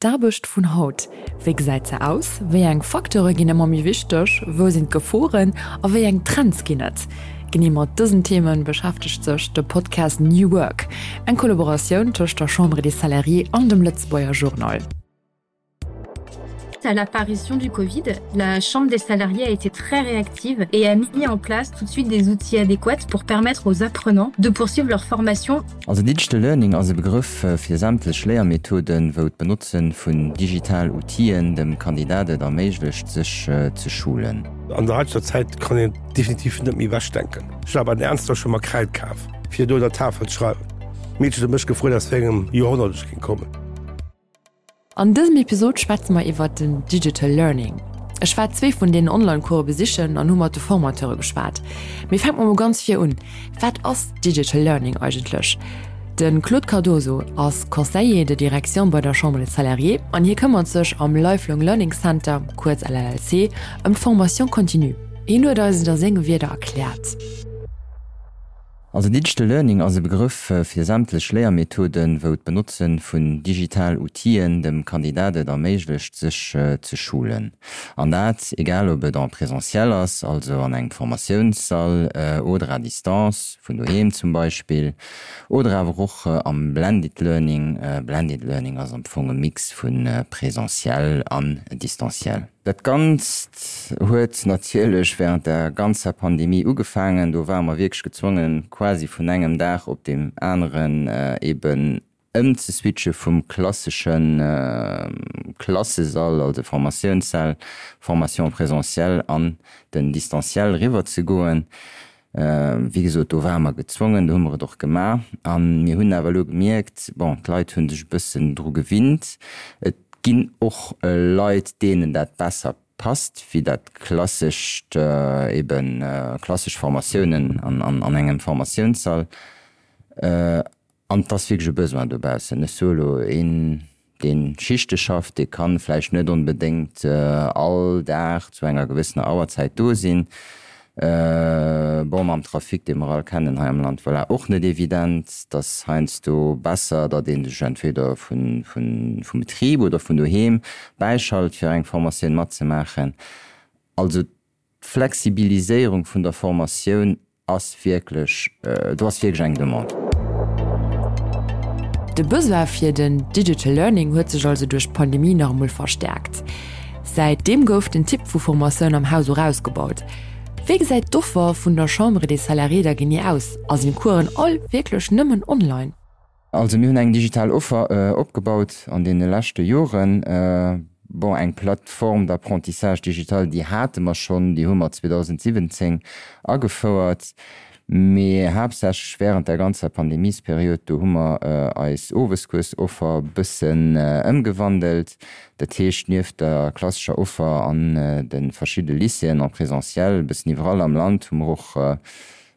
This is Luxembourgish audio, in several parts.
D'Aarbecht vun haut, Wéi gesäit se aus? Wéi eng Facteure ginn ëmmer méi wichteg? Wou sinn d'Geforen a wéi eng Trends ginn et? Genee mat dësen Theme beschäftegt sech de Podcast New Work, eng Kollaboratioun tëscht der Chambre des Salariés an dem Lëtzebuerger Journal. À l'apparition du Covid, la Chambre des salariés a été très réactive et a mis en place tout de suite des outils adéquats pour permettre aux apprenants de poursuivre leur formation. Also Digital Learning ass e Begrëff fir sämtlech Léiermethoden, wou d'Benotze vun digital Outill'en dem Kandidat et erméiglecht, sech ze schulen. An der haiteger Zäit kann een et definitiv net méi ewechdenken. Ech war bei den Ernster ech hu mer Kräid kaf, fir do un der Tafel ze schreiwen. D'Meedchen huet mech gefrot, aus wéi engem Joerhonnert ech géing kommen. An dësem Episod schwätze mer iwwert den Digital Learning. Ech war zwee vun deenen Online-Course besichen an hu mat de Formateure geschwat. Mee fänke mer mol ganz vir un, Wat ass Digital Learning eigentlech? De Claude Cardoso ass Conseiller de direction bei der Chambre des Salariés an hie këmmert sech am Lifelong Learning Center, kuerz LLC, ëm d'Formation continue. Hien huet eis et a senge Wierder erkläert. Also Digital Learning ass e Begrëff fir sämtlech Léiermethoden, wou d'Benotze vun digital Outill'en dem Kandidat et erméiglecht sech ze schulen. An dat egal ob et en présentiel ass, also an engem Formatiounssall, oder à distance, vun doheem zum Beispill, oder awer och am Blended Learning. Blended Learning ass am Fong e Mix vu présentiel an distanciel. Dat Ganzt huet natierlech während der ganzer Pandemie ugefaangen. Do ware mer wierklech gezwongen, quasi vun engem Dag op deem aneren eben ëmzeswitche vum klassesche Klassesall, also Formatiounssäll, Formation présentielle, an den Distanciel eriwwerzegoen. Wéi gesot, do ware mer gezwongen, do hu mer et och gemaach. A mir hunn awer elo gemierkt, bon, d'Leit hu sech e bëssen dru gewinnt. Et ginn och Leit, deenen dat besser passt wéi dat klassescht, eben klassesch Formatiounen an engem Formatiounssall. An et ass wierklech e Besoin dobaussen. Ech soe elo, een, dee Schichte schafft, dee ka vläicht net onbedéngt all Dag zu enger gewëssener Auerzäit do sinn. Bon, mam Trafic, dee mer all kennen hei am Land, voilà, och net evident. Et ass heiansdo besser, datt ee sech entweder vum Betrib oder vun doheem bäischalt, fir eng Formatioun matzemaachen. Also d'Flexibiliséierung vun der Formatioun ass wierklech, do ass wierklech eng Demande. De Besoin fir den Digital Learning huet sech also duerch d'Pandemie nach emol verstäerkt. Säit deem gouf den Typ vu Formatioun am Haus och ausgebaut. Wéi gesäit d'Offer vun der Chambre des Salariés da genee aus a sinn d'Coursen all wierklech nëmmen online? Also mir hunn eng digital Offer opgebaut an deene leschte Joren. Bon, eng Plateforme d'apprentissage digital, déi hate mer schonn, déi hu mer 2017 agefouert, mee haaptsächlech während der ganzer Pandemiesperiod, do hu mer eis Oweskuersoffer e bëssen ëmgewandelt. Dat heescht, nieft der klassescher Offer an de verschidde Lycéeën en présentiel, e bëssen iwwerall am Land, hu mer och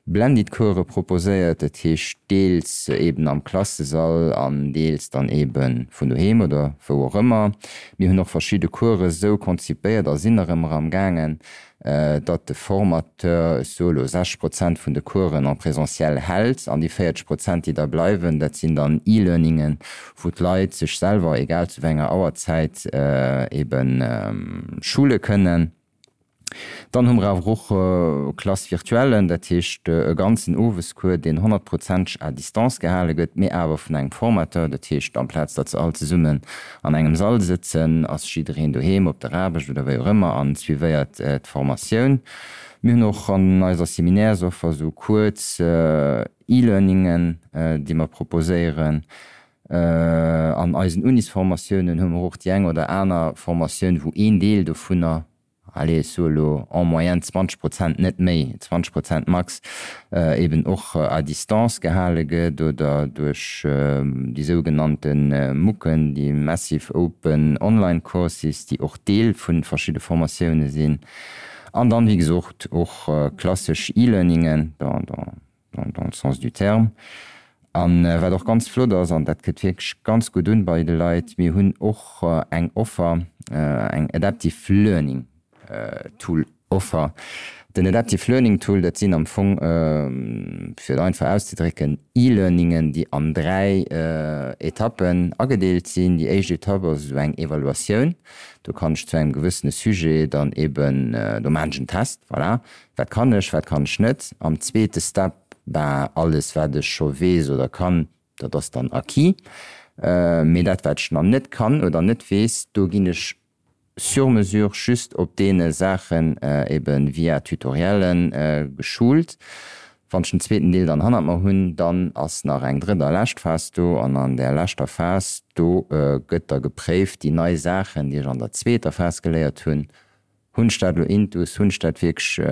Blended Course proposéiert, dat heescht deels eben am Klassesall an deels dann eben vun doheem oder wou och ëmmer. Mir hunn och verschidde Coursen esou konzipéiert a sinn nach ëmmer am gaangen, datt de Formateur, ech soe lo 60 Prozent vun de Coursen en présentiel hält an déi 40 Prozent déi da bleiwen, dat sinn dann E-Learningen, wou d'Leit sech selwer, egal zu wéi enger Auerzäit, eben schule kënnen. Dann hu mer awer och Classe virtuellen, dat heescht e ganzen Owescours, deen honnertprozenteg à distance gehale gëtt, mee awer vun engem Formateur. Dat heescht, amplaz datt se all zesummen an engem Sall sëtzen, ass jiddereen doheem op der Aarbecht oder wéi och ëmmer an suivéiert d'Formatioun. Mir hunn och an eiser Seminairsoffer esou kuerz E-Learningen, déi mer proposéieren. An eisen Unisformatiounen hu mer och déi eng oder aner Formatioun, wou een Deel dovunner, allez, ech soe lo en moyenne 20 Prozent, net méi, 20 Prozent max, eben och à distance gehale gëtt oder duerch déi sougenannte MOOCen, déi Massive Open Online Courses, déi och Deel vu verschidde Formatioune sinn. An dann, wéi gesot, och klassesch E-Learningen. Dans le sens du terme. A wat och ganz flott ass, an dat kënnt wierklech ganz gutt un bei de Leit, mir hunn och eng Offer, eng Adaptive Learning Tool Offer. Den Adaptive Learning Tool, dat sinn am Fong, fir et einfach auszedrécken, E-Learningen, déi an 3 Etappen agedeelt sinn. Déi éischt Etapp ass esou eng Evaluatioun. Do kann ech zu engem gewëssene Sujet dann eben, do maachen ech en Test, voilà, wat kann ech, wat kann ech net. Am zweete Step, ben, alles wat ech scho weess oder kann, dat ass dann acquis. Mee dat wat ech nach net kann oder net weess, do ginn ech sur mesure just op deene Saachen eben via Tutoriellen geschult. Wann ech den zweeten Deel dann hannert mer hunn, dann ass nach eng drëtt a lescht Phas do an an där leschter Phas, do gëtt da gepréift, déi nei Saachen, déi ech an der zweeter Phas geléiert hunn, Hunn ech dat elo intus? Hunn ech dat wierklech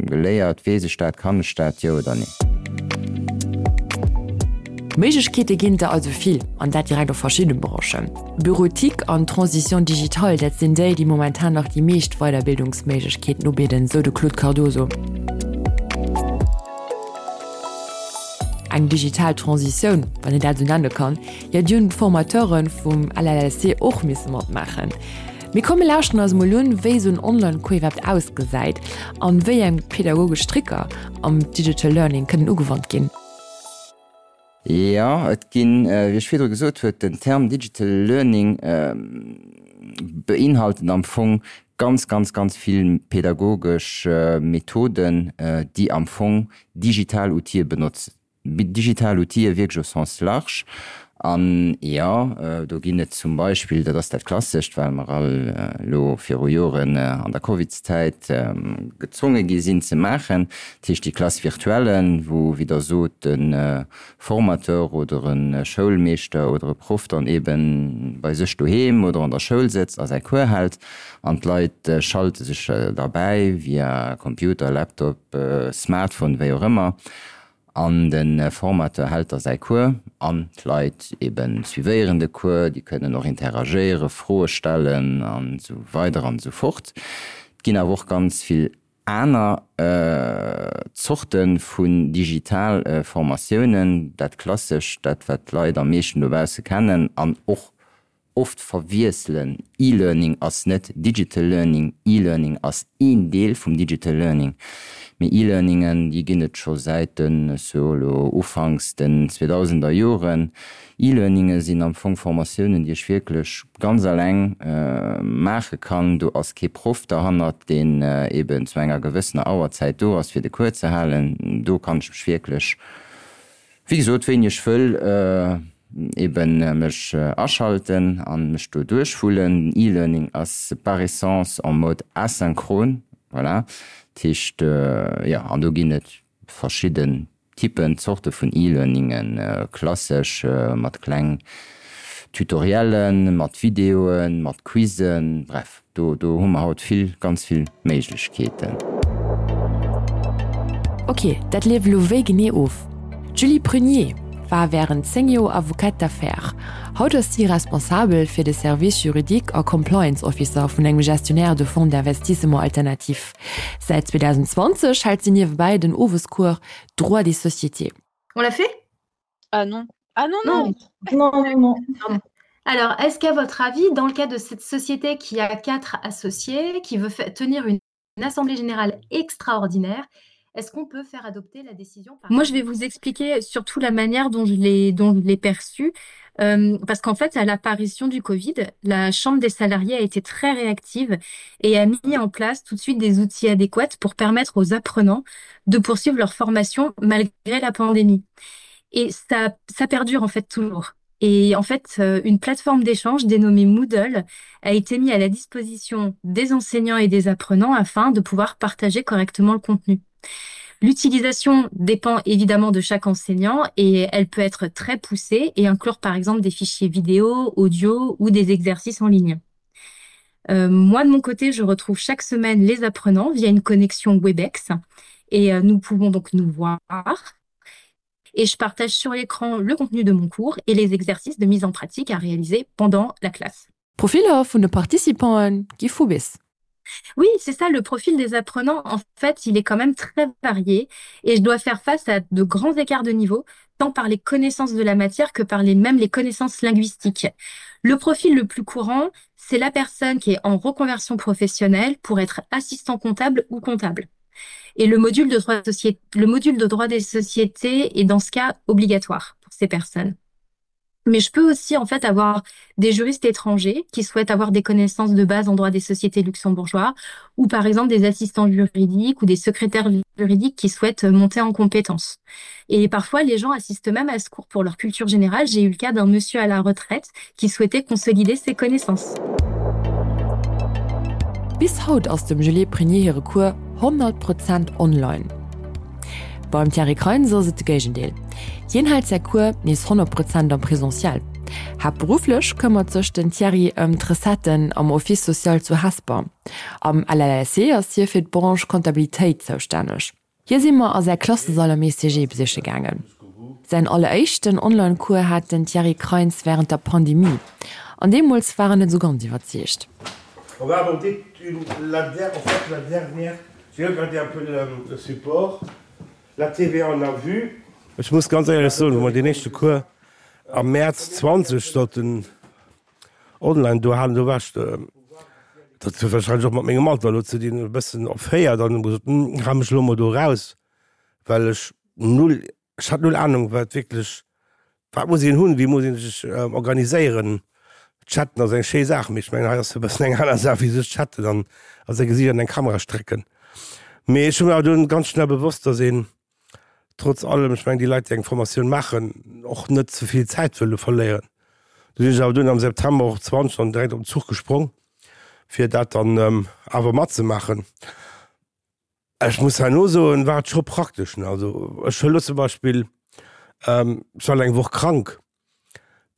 geléiert? Weess ech dat? Kann ech dat? Jo oder nee? Méiglechkeete ginn der also vill, an dat direkt op verschidde Branchen. Bureautique an Transition digitale, dat sinn déi, déi momentan nach déi meescht Weiderbildungsméiglechkeeten ubidden, sou de Claude Cardoso. Eng digital Transitioun, wann een dat esou nenne kann, jo déi hunn d'Formateure vum LLLC och misse matmaachen. Mee komm mir lauschteren eis emol un, wéi esou en Online-Cours iwwerhaapt ausgesäit an wéi eng pedagogesch Tricker am Digital Learning kënnen ugewannt ginn. Jo, et ginn, wéi ech virdru gesot huet, den Term Digital Learning beinhaltet am Fong ganz, ganz, ganz vill pedagogesch Methoden, déi am Fong digital Outile benotzen. Digital Outile wierklech au sens large. An jo, do ginn et zum Beispill, dat ass dat Klassescht, well mer all elo viru Joren an der Covidszäit gezwonge gi sinn ze maachen, dat heescht déi Classe virtuelle, wou, wéi Der sot, de Formateur oder e Schoulmeeschter oder e Proff dann eebe bei sech doheem oder an der Schoul sëtzt a säi Cours hält an d'Leit schalte sech derbäi via Computer, Laptop, Smartphone, wéi och ëmmer. An de Formateur hält da säi Cours an d'Leit eben suivéieren de Cours, déi kënnen och interagéieren, Froe stellen an esou weider an esou fort. Et ginn awer och ganz vill aner Zorte vun digital Formatiounen, dat Klassescht, dat wat d'Leit am meeschten dobausse kennen an och oft verwiesselen, E-Learning ass net Digital Learning, E-Learning ass een Deel vum Digital Learning. Mee E-Learningen, déi ginn et scho säit de, so elo ufanks den zweedausender Joren. E-Learninge sinn am Fong Formatiounen, déi ech wierklech ganz alleng maache kann. Do ass kee Proff derhannert, deen eben zu enger gewëssener Auerzäit do ass, fir de Cours ze halen. Do kann ech mech wierklech Wéi gesot, wéini ech wëll, eben mech aschalten an mech do duerchwullen. Den E-Learning ass par essence en mode asynchrone, voilà. Dat heescht, jo, an do ginn et verschidden Typen, Zorte vun E-Learningen, klassesch mat kleng Tutoriellen, mat Videoen, mat Quizen, bref. Do do hu mer haut vill, ganz vill Méiglechkeeten. Ok, dat leeft elo wéi genee of? D'Julie Prunier war wärend 10 Joer Avocate d'affaires. Haut ass si responsabel fir de Service juridique a Compliance Officer vun engem Gestionnaire de fonds d'investissement alternatif. Säit 2020 hält si niewebäi den Owescours Droit des sociétés. On l'a fait? Ah non. Ah non, non. Non, non, non. Pardon. Alors, est-ce qu'à votre avis, dans le cas de cette société qui a quatre associés, qui veut tenir une assemblée générale extraordinaire, est-ce qu'on peut faire adopter la décision par... Moi, je vais vous expliquer surtout la manière dont je l'ai dont je l'ai perçue. Euh, parce qu'en fait, à l'apparition du Covid, la Chambre des salariés a été très réactive et a mis en place tout de suite des outils adéquats pour permettre aux apprenants de poursuivre leur formation malgré la pandémie. Et ça, ça perdure en fait toujours. Et en fait, euh, une plateforme d'échange dénommée Moodle a été mise à la disposition des enseignants et des apprenants afin de pouvoir partager correctement le contenu. L'utilisation dépend évidemment de chaque enseignant et elle peut être très poussée et inclure par exemple des fichiers vidéo, audio ou des exercices en ligne. Euh, moi, de mon côté, je retrouve chaque semaine les apprenants via une connexion Webex et euh, nous pouvons donc nous voir et je partage sur l'écran le contenu de mon cours et les exercices de mise en pratique à réaliser pendant la classe. D'Profiller vun de Participanten gi vu bis. Oui, c'est ça, le profil des apprenants, en fait, il est quand même très varié et je dois faire face à de grands écarts de niveau, tant par les connaissances de la matière que par les mêmes les connaissances linguistiques. Le profil le plus courant, c'est la personne qui est en reconversion professionnelle pour être assistant comptable ou comptable. Et le module de droit, le module de droit des sociétés est dans ce cas obligatoire pour ces personnes. Mais je peux aussi en fait avoir des juristes étrangers qui souhaitent avoir des connaissances de base en droit des sociétés luxembourgeois ou par exemple des assistants juridiques ou des secrétaires juridiques qui souhaitent monter en compétences. Et parfois les gens assistent même à ce cours pour leur culture générale. J'ai eu le cas d'un monsieur à la retraite qui souhaitait consolider ses connaissances. Bis haut ass dem Julie Prunier hire Cours 100 Prozent online. Beim Thierry Kreins ass et de Géigendeel. Hien hält säi Cours nees 100 Prozent am Presentiel. Haaptberufflech këmmert sech den Thierry ëm d'Recetten am Office social zu Hesper. Am LLSC ass hie fir d'Branche Comptabilitéit zoustänneg. Hie si mer a säi Klassesall am ECG besiche gaangen. Säin alleréischten Online-Cours hat den Thierry Kreins wärend der Pandemie. An deemools war en net esou ganz iwwerzeegt. On va aborder la en fait la dernière J'ai regardé un peu le support, la TVA on a vu. Ech muss ganz éierlech soen, wou mer deen éischte Cours am Mäerz 20 sollten online do halen, do war ech, dat huet wahrscheinlech och mat mengem Alter elo ze dinn, e bëssen erféiert an hu gesot, hal mech elo mol do eraus, well ech null Ech hat null Ahnung wat wierklech, wat muss een hunn, wéi muss een sech organiséieren. Chatten ass eng schéi Saach, mee ech mengen hei ass e bëssen eng aner Saach wéi sech chatten an a säi Gesiicht an eng Kamera strecken. Mee ech hu mir awer dunn ganz schnell bewosst, datt een trotz allem, ech mengen déi Leit déi eng Formatioun maachen, och net ze vill Zäit wëlle verléieren. Du sinn ech awer dunn am September och 20 dann direkt op den Zuch gesprong, fir dat dann awer matzemaachen. Ech muss herno soen, war et scho praktesch, ne. Also ech hu lo zum Beispill, ech war eng Woch krank,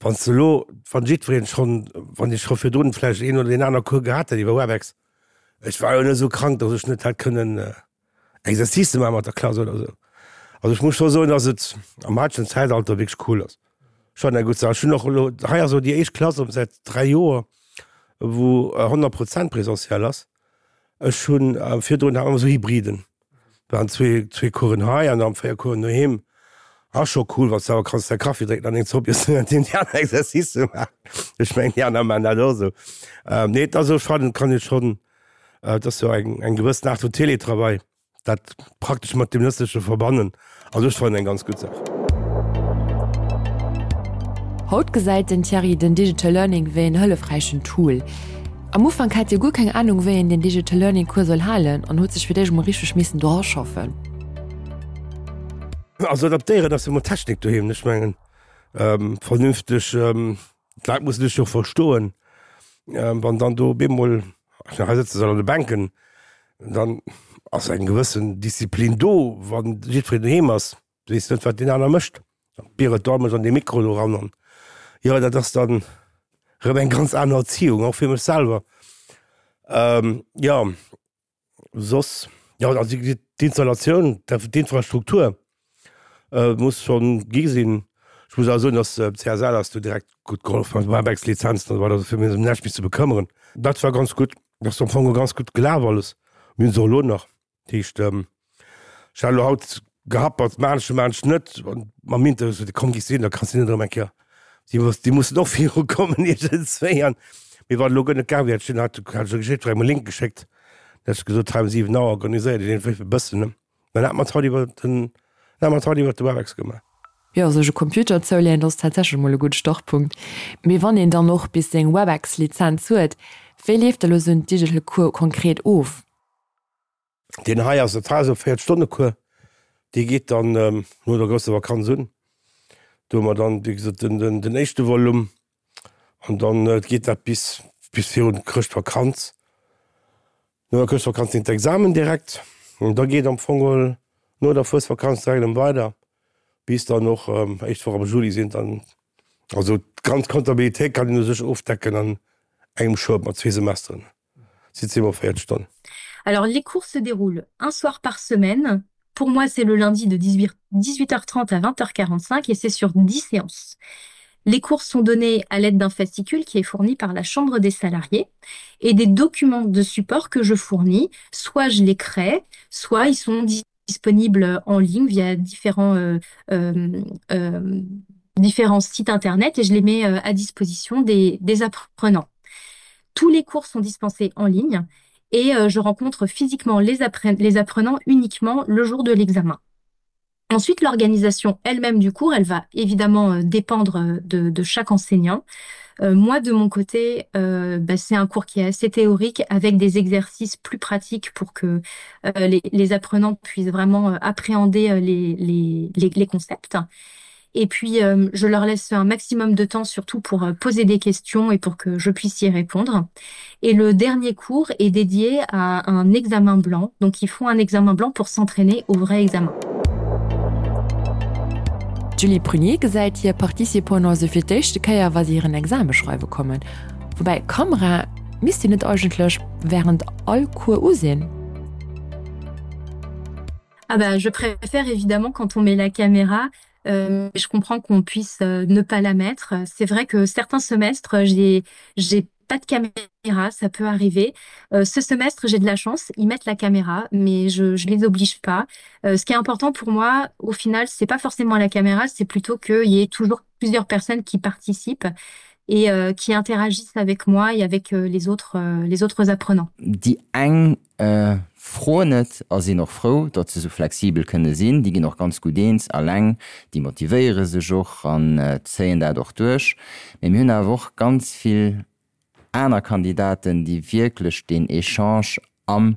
wann s de elo, wann jiddwereen schonn, wann ech scho virdrun vläicht een oder deen aner Cours gehat hätt iwwer Webex, ech war jo net esou krank, datt ech net hätt kënnen Exercicë maache mat der Klass oder esou. Also ech muss scho soen, datt et am haitegen Zäitalter wierklech cool ass. Schon eng gutt Saach. Ech hunn och elo, hei ass elo déi éischt Klass erëm säit 3 Joer, wou 100 Prozent présentiel ass. Ech hunn virdrun hat mer esou Hybriden, waren zwee, zwee Coursen hei an dann 4 Coursen doheem. Ass scho cool, wann s de awer kanns däi Kaffi drénken an deng Zopp iessen während deem déi aner Exercicë maachen. Ech mengen, déi aner maachen dat och esou. Nee, et ass esou, fannen, kann ee schonn, et ass jo eng, eng gewëssen Aart vun Télétravail. Dat praktesch mat dem Nëtzleche verbannen ass ech fannen eng ganz gutt Saach. Haut gesäit den Thierry den Digital Learning wéi en hëllefräichen Tool. Am Ufank hat hie guer keng Anung wéi een den Digital Learning Cours soll halen an huet sech fir d'éischt mol richteg missen do raschaffen. Also adaptéieren ass jo mol Technik doheem, ech mengen vernünfteg D'Leit mussen dech jo verstoen, wann dann do op eemol, hei sëtze se an de Bänken, dann ass eng gewëssen Disziplin do, wann jiddwereen doheem ass, weess net, wat deen aner mécht. Dann biert do mech an dee Mikro do eran an jo, dat ass dann erëm eng ganz aner Erziehung, och fir mech selwer. Jo. Soss, jo, also d'Installatioun, d'Infrastruktur muss schonn gi sinn. Ech muss awer soen, datt CSL ass do direkt gutt gehollef mat Webex-Lizenzen an esou weider, also fir mech ëm näischt méi ze bekëmmeren. Dat war ganz gutt, dat ass am Fong ganz gutt gelaf alles. Mir hunn se och elo nach. Dat heescht, ech hat elo haut Gehappert maan ech, maan ech net. Mam Interview sot, komm giss sinn, da kanns du net erëm eng Kéier. Déi muss, déi mussen och viru kommen iergendswéi. An mee wann elo guer net gaang wier, hätt ech den, hat ech jo jiddwerengem e Link geschéckt, da hätt ech gesot, hei um 7 Auer organiséiert Dir deen e bëssen, ne? Dann hat mer et haut iwwer den, dann hat mer et haut iwwer de Webex gemaach. Jo, sech e Computer zouleeën, dat ass tatsächlech emol e gudde Startpunkt. Mee wann een dann och bis seng Webex-Lizenz huet, wéi leeft da lo sou en Digital Cours konkret of? Deen hei ass, dat hei ass e 4 Stonne Cours, dee geet dann no der grousser Vakanz un. Do hu mer dann, wéi gesot, den, den, den éischte Volume an dann geet dat bis, bis virun d'Chrëschtvakanz. No der Chrëschtvakanz sinn d'Examen direkt an da geet am Fong geholl no der Fuesvakanz direkt erëm weider, bis dann och éischt Woch am Juli sinn dann, also d'ganz Comptabilitéit kann een u sech ofdecken an engem Schoup mat zwee Semesteren. Alors les cours se déroulent un soir par semaine. Pour moi, c'est le lundi de 18, 18h30 à 20h45 et c'est sur 10 séances. Les cours sont donnés à l'aide d'un fascicule qui est fourni par la chambre des salariés et des documents de support que je fournis, soit je les crée, soit ils sont disponibles en ligne via différents, euh, euh, euh, différents sites internet et je les mets euh, à disposition des, des apprenants. Tous les cours sont dispensés en ligne. Et euh, je rencontre physiquement les, appren les apprenants uniquement le jour de l'examen. Ensuite, l'organisation elle-même du cours, elle va évidemment euh, dépendre euh, de, de chaque enseignant. Euh, moi, de mon côté, euh, c'est un cours qui est assez théorique avec des exercices plus pratiques pour que euh, les, les apprenants puissent vraiment euh, appréhender euh, les, les, les, les concepts. Et puis, euh, je leur laisse un maximum de temps surtout pour euh, poser des questions et pour que je puisse y répondre. Et le dernier cours est dédié à un examen blanc. Donc, ils font un examen blanc pour s'entraîner au vrai examen. D'Julie Prunier gesäit hir Participanten also fir d'éischte Kéier, wa si hiren Exame schreiwe kommen. Woubäi, Kamera misst déi net eigentlech wärend all Cours u sinn? Ah bah, je préfère évidemment quand on met la caméra, euh, je comprends qu'on puisse euh, ne pas la mettre. C'est vrai que certains semestres, j'ai j'ai pas de caméra, ça peut arriver. Euh, ce semestre, j'ai de la chance, ils mettent la caméra, mais je je les oblige pas. Euh, ce qui est important pour moi, au final, c'est pas forcément la caméra, c'est plutôt qu'il y ait toujours plusieurs personnes qui participent et euh, qui interagissent avec moi et avec euh, les autres, euh, les autres apprenants. Déi eng froen et a sinn och frou, datt se sou flexibel kënne sinn. Déi ginn och ganz gutt eens alleng, déi motivéiere sech och an zéien dat och duerch. Mee mir hunn awer och ganz vill aner Kandidaten, déi wierklech deen Echange am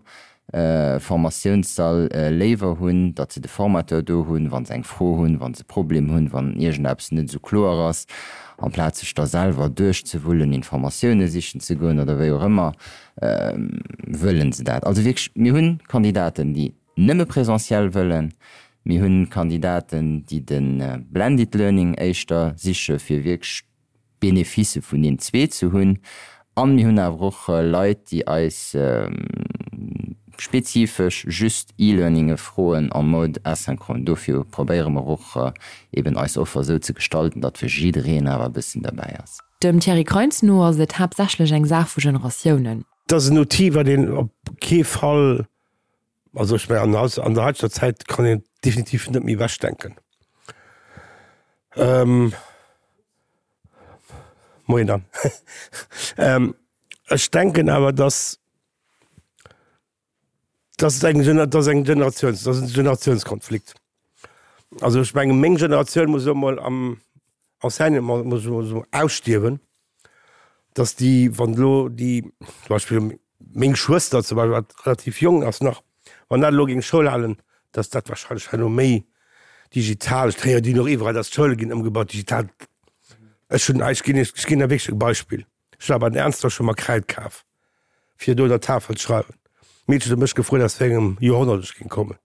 Formatiounssall léiwer hunn, datt se de Formateur do hunn, wa se eng Fro hunn, wa se e Problem hunn, wann iergendeppes net esou kloer ass, amplaz sech da selwer duerchzewullen, Informatioune sichen ze goen oder wéi och ëmmer, wëllen se dat. Also wierklech, mir hunn Kandidaten, déi nëmme présentiel wëllen, mir hunn Kandidaten, déi de Blended Learning éischter siche fir wierklech d'Beneficë vun deem zwee ze hunn an mir hunn awer och Leit, déi eis spezifesch just E-Learninge froen en mode asynchrone. Dofir probéiere mer och eben eis Offer esou ze gestalten, datt fir jiddereen awer e bëssen derbäi ass. Dem Thierry Kreins no ass et haaptsächlech eng Saach vu Generatiounen. Et ass en Outil, wat een op kee Fall, also ech mengen an der haiteger Zäit kann een et definitiv net méi ewechdenken. Moien Dan. Ech denken awer, datt Dat ass eng, dat ass eng Generatiouns, dat ass en Generatiounskonflikt. Also ech menge meng Generatioun muss elo mol am Enseignement muss elo esou ausstierwen, datt déi, wann elo déi zum Beispill meng Schwëster zum Beispill, wat relativ jonk ass nach, wann dat elo géing Schoul halen, datt dat wahrscheinlech herno méi digital, ech héieren déi och iwwerall, datt d'Schoule ginn ëmgebaut digital. Ech hunn, ech ginn Iech, ech ginn der wierklech e Beispill. Ech war bei den Ernster, ech hu mer Kräid kaf, fir do der Tafel ze schreiwen. D'Meedchen huet mech gefrot, aus wéi engem Joerhonnert ech géing kommen.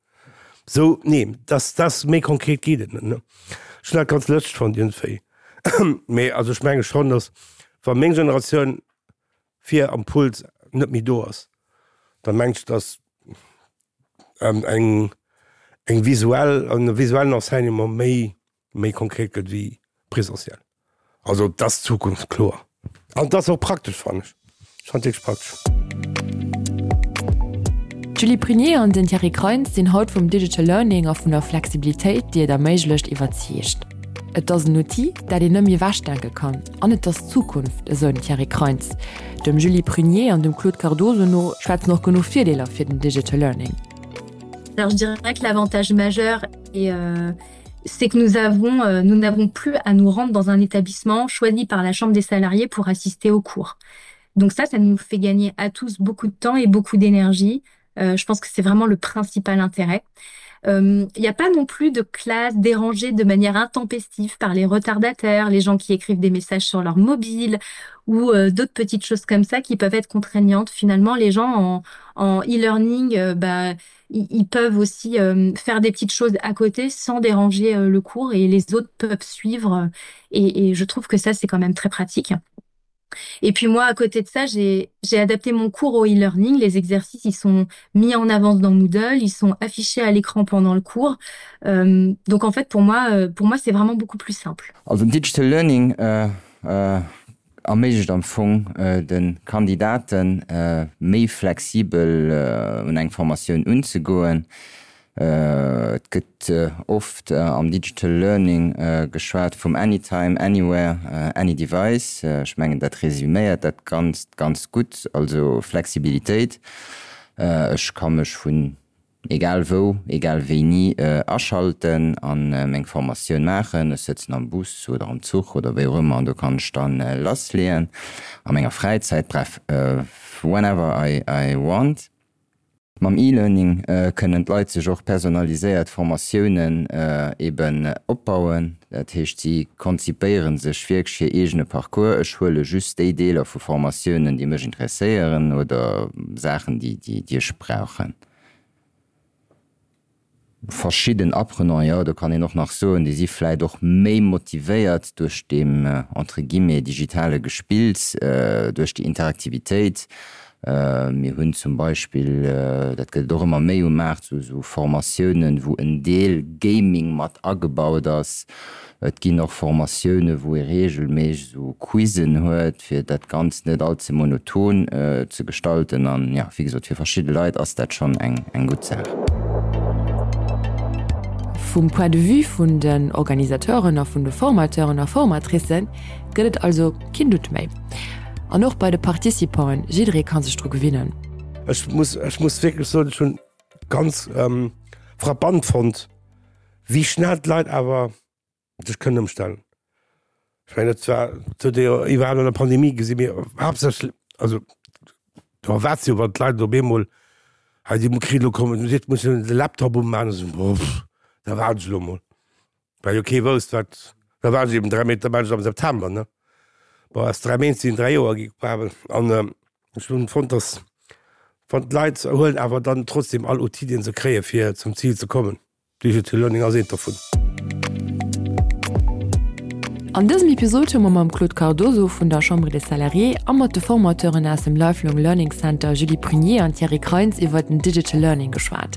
Sou, nee, dass, dass, méi konkret geet et net, ne? Ech hunn dat ganz lëschteg fonnt iergendwéi. Mee also ech menge schonn, dass, wa meng Generatioun vir am Pult net méi do ass, da mengt ech, dass eng, eng visuell, en visuellen Enseignement méi méi konkret gëtt wéi présentiel. Also et ass d'Zukunft, kloer. An et ass och praktesch, fannen ech. Ech fannen et wierklech praktesch. D'Julie Prunier an den Thierry Kreins sinn haut vum Digital Learning a vun der Flexibilitéit, déi et erméiglecht, iwwerzeegt. Et ass en Outil, dat een net méi ewechdenke kann an et ass d'Zukunft, esou den Thierry Kreins. Dem Julie Prunier an dem Claude Cardoso no schwätzen och genuch Virdeeler fir den Digital Learning. Alors je dirais que l'avantage majeur est euh, c'est que nous avons euh, nous n'avons plus à nous rendre dans un établissement choisi par la chambre des salariés pour assister au cours. Donc ça, ça nous fait gagner à tous beaucoup de temps et beaucoup d'énergie. Euh, je pense que c'est vraiment le principal intérêt. Il euh, n'y a pas non plus de classe dérangée de manière intempestive par les retardataires, les gens qui écrivent des messages sur leur mobile ou euh, d'autres petites choses comme ça qui peuvent être contraignantes. Finalement, les gens en, en e-learning, euh, bah, ils peuvent aussi euh, faire des petites choses à côté sans déranger euh, le cours et les autres peuvent suivre euh, et, et je trouve que ça c'est quand même très pratique. Et puis moi à côté de ça j'ai adapté mon cours au e-learning les exercices ils sont mis en avance dans Moodle ils sont affichés à l'écran pendant le cours euh, donc en fait pour moi euh, pour moi c'est vraiment beaucoup plus simple also digital learning euh, euh, erméiglecht am Fong de Kandidaten, méi flexibel un eng Formatioun unzegoen. Et gëtt oft am Digital Learning geschwat vum Anytime, Anywhere, Any Device. Ech mengen, dat resüméiert dat Ganzt ganz gutt, also Flexibilitéit. Ech ka mech vun egal wou, egal wéini aschalten an meng Formatioun maachen. Ech sëtzen am Bus oder am Zuch oder wéi och ëmmer an do kann ech dann lassleeën a menger Fräizäit, bref, whenever I I want. Mam E-Learning kënnen d'Leit sech och personaliséiert Formatiounen eben opbauen. Dat heescht, si konzipéiere sech wierklech hir eegene Parcours. Ech huele just déi Deeler vu Formatiounen, déi mech interesséieren oder Saachen, déi ech brauchen. Verschidden Apprenanten, jo, do kann een och nach soen, déi si vläit och méi motivéiert duerch deem, entre guillemets, digitale Gespills, duerch déi Interaktivitéit. Mir hunn zum Beispill, dat gëtt et och ëmmer méi um Maart, esou Formatiounen, wou en Deel Gaming mat agebaut ass. Et ginn och Formatioune wou ee reegelméisseg esou Quizzen huet, fir dat Ganzt net all ze monoton ze gestalten. An jo, wéi gesot, fir verschidde Leit ass dat schonn eng gutt Saach. Vum Point de vue vun den Organisateuren a vun de Formateuren a Formatricen gëtt et also keen Doute méi. An och bei de Participanten, jidderee ka sech dru gewinnen. Ech muss, ech muss wierklech soen, ech hunn ganz frappant fonnt, wéi schnell d'Leit awer sech kënnen ëmstellen. Ech mengen, dat war, dat huet ee jo iwwerhaapt an der Pandemie gesinn, mee haaptsächlech, also do erwaart se jo, wann d'Leit op eemol hei, déi kritt elo kommen, seet, muss jo de Laptop umaachen, esou, boff, da waarden ech elo emol. Well jo kee wousst, wat, da waren se eben 3 Méint, da waren se am September, ne? Bon, aus 3 Méint sinn 3 Joer gi quasi. An ech hunn fonnt, datt wann d'Leit huelen awer dann trotzdem all Outil, dee se kréien, fir zum Zil ze kommen. Digital Learning ass eent dovun. An dësem Episod hu mer mam Claude Cardoso vun der Chambre des Salariés a mat de Formateuren aus dem Lifelong Learning Center Julie Prunier an Thierry Kreins iwwer den Digital Learning geschwat.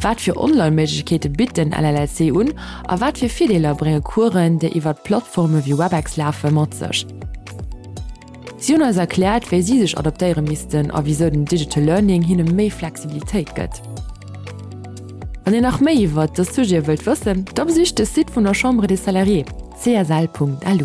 Wat fir Online-Méiglechkeete bitt den LLLC un a wat fir Virdeeler brénge Coursen, déi iwwert Plattforme wéi Webex lafe, mat sech? Si hunn eis erkläert, wéi si sech adaptéiere missten a wisou den Digital Learning hinne méi Flexibilitéit gëtt. Wann Dir nach méi iwwert dës Sujete wëllt wëssen, da besicht de Site vun der Chambre des Salariés, csl.lu.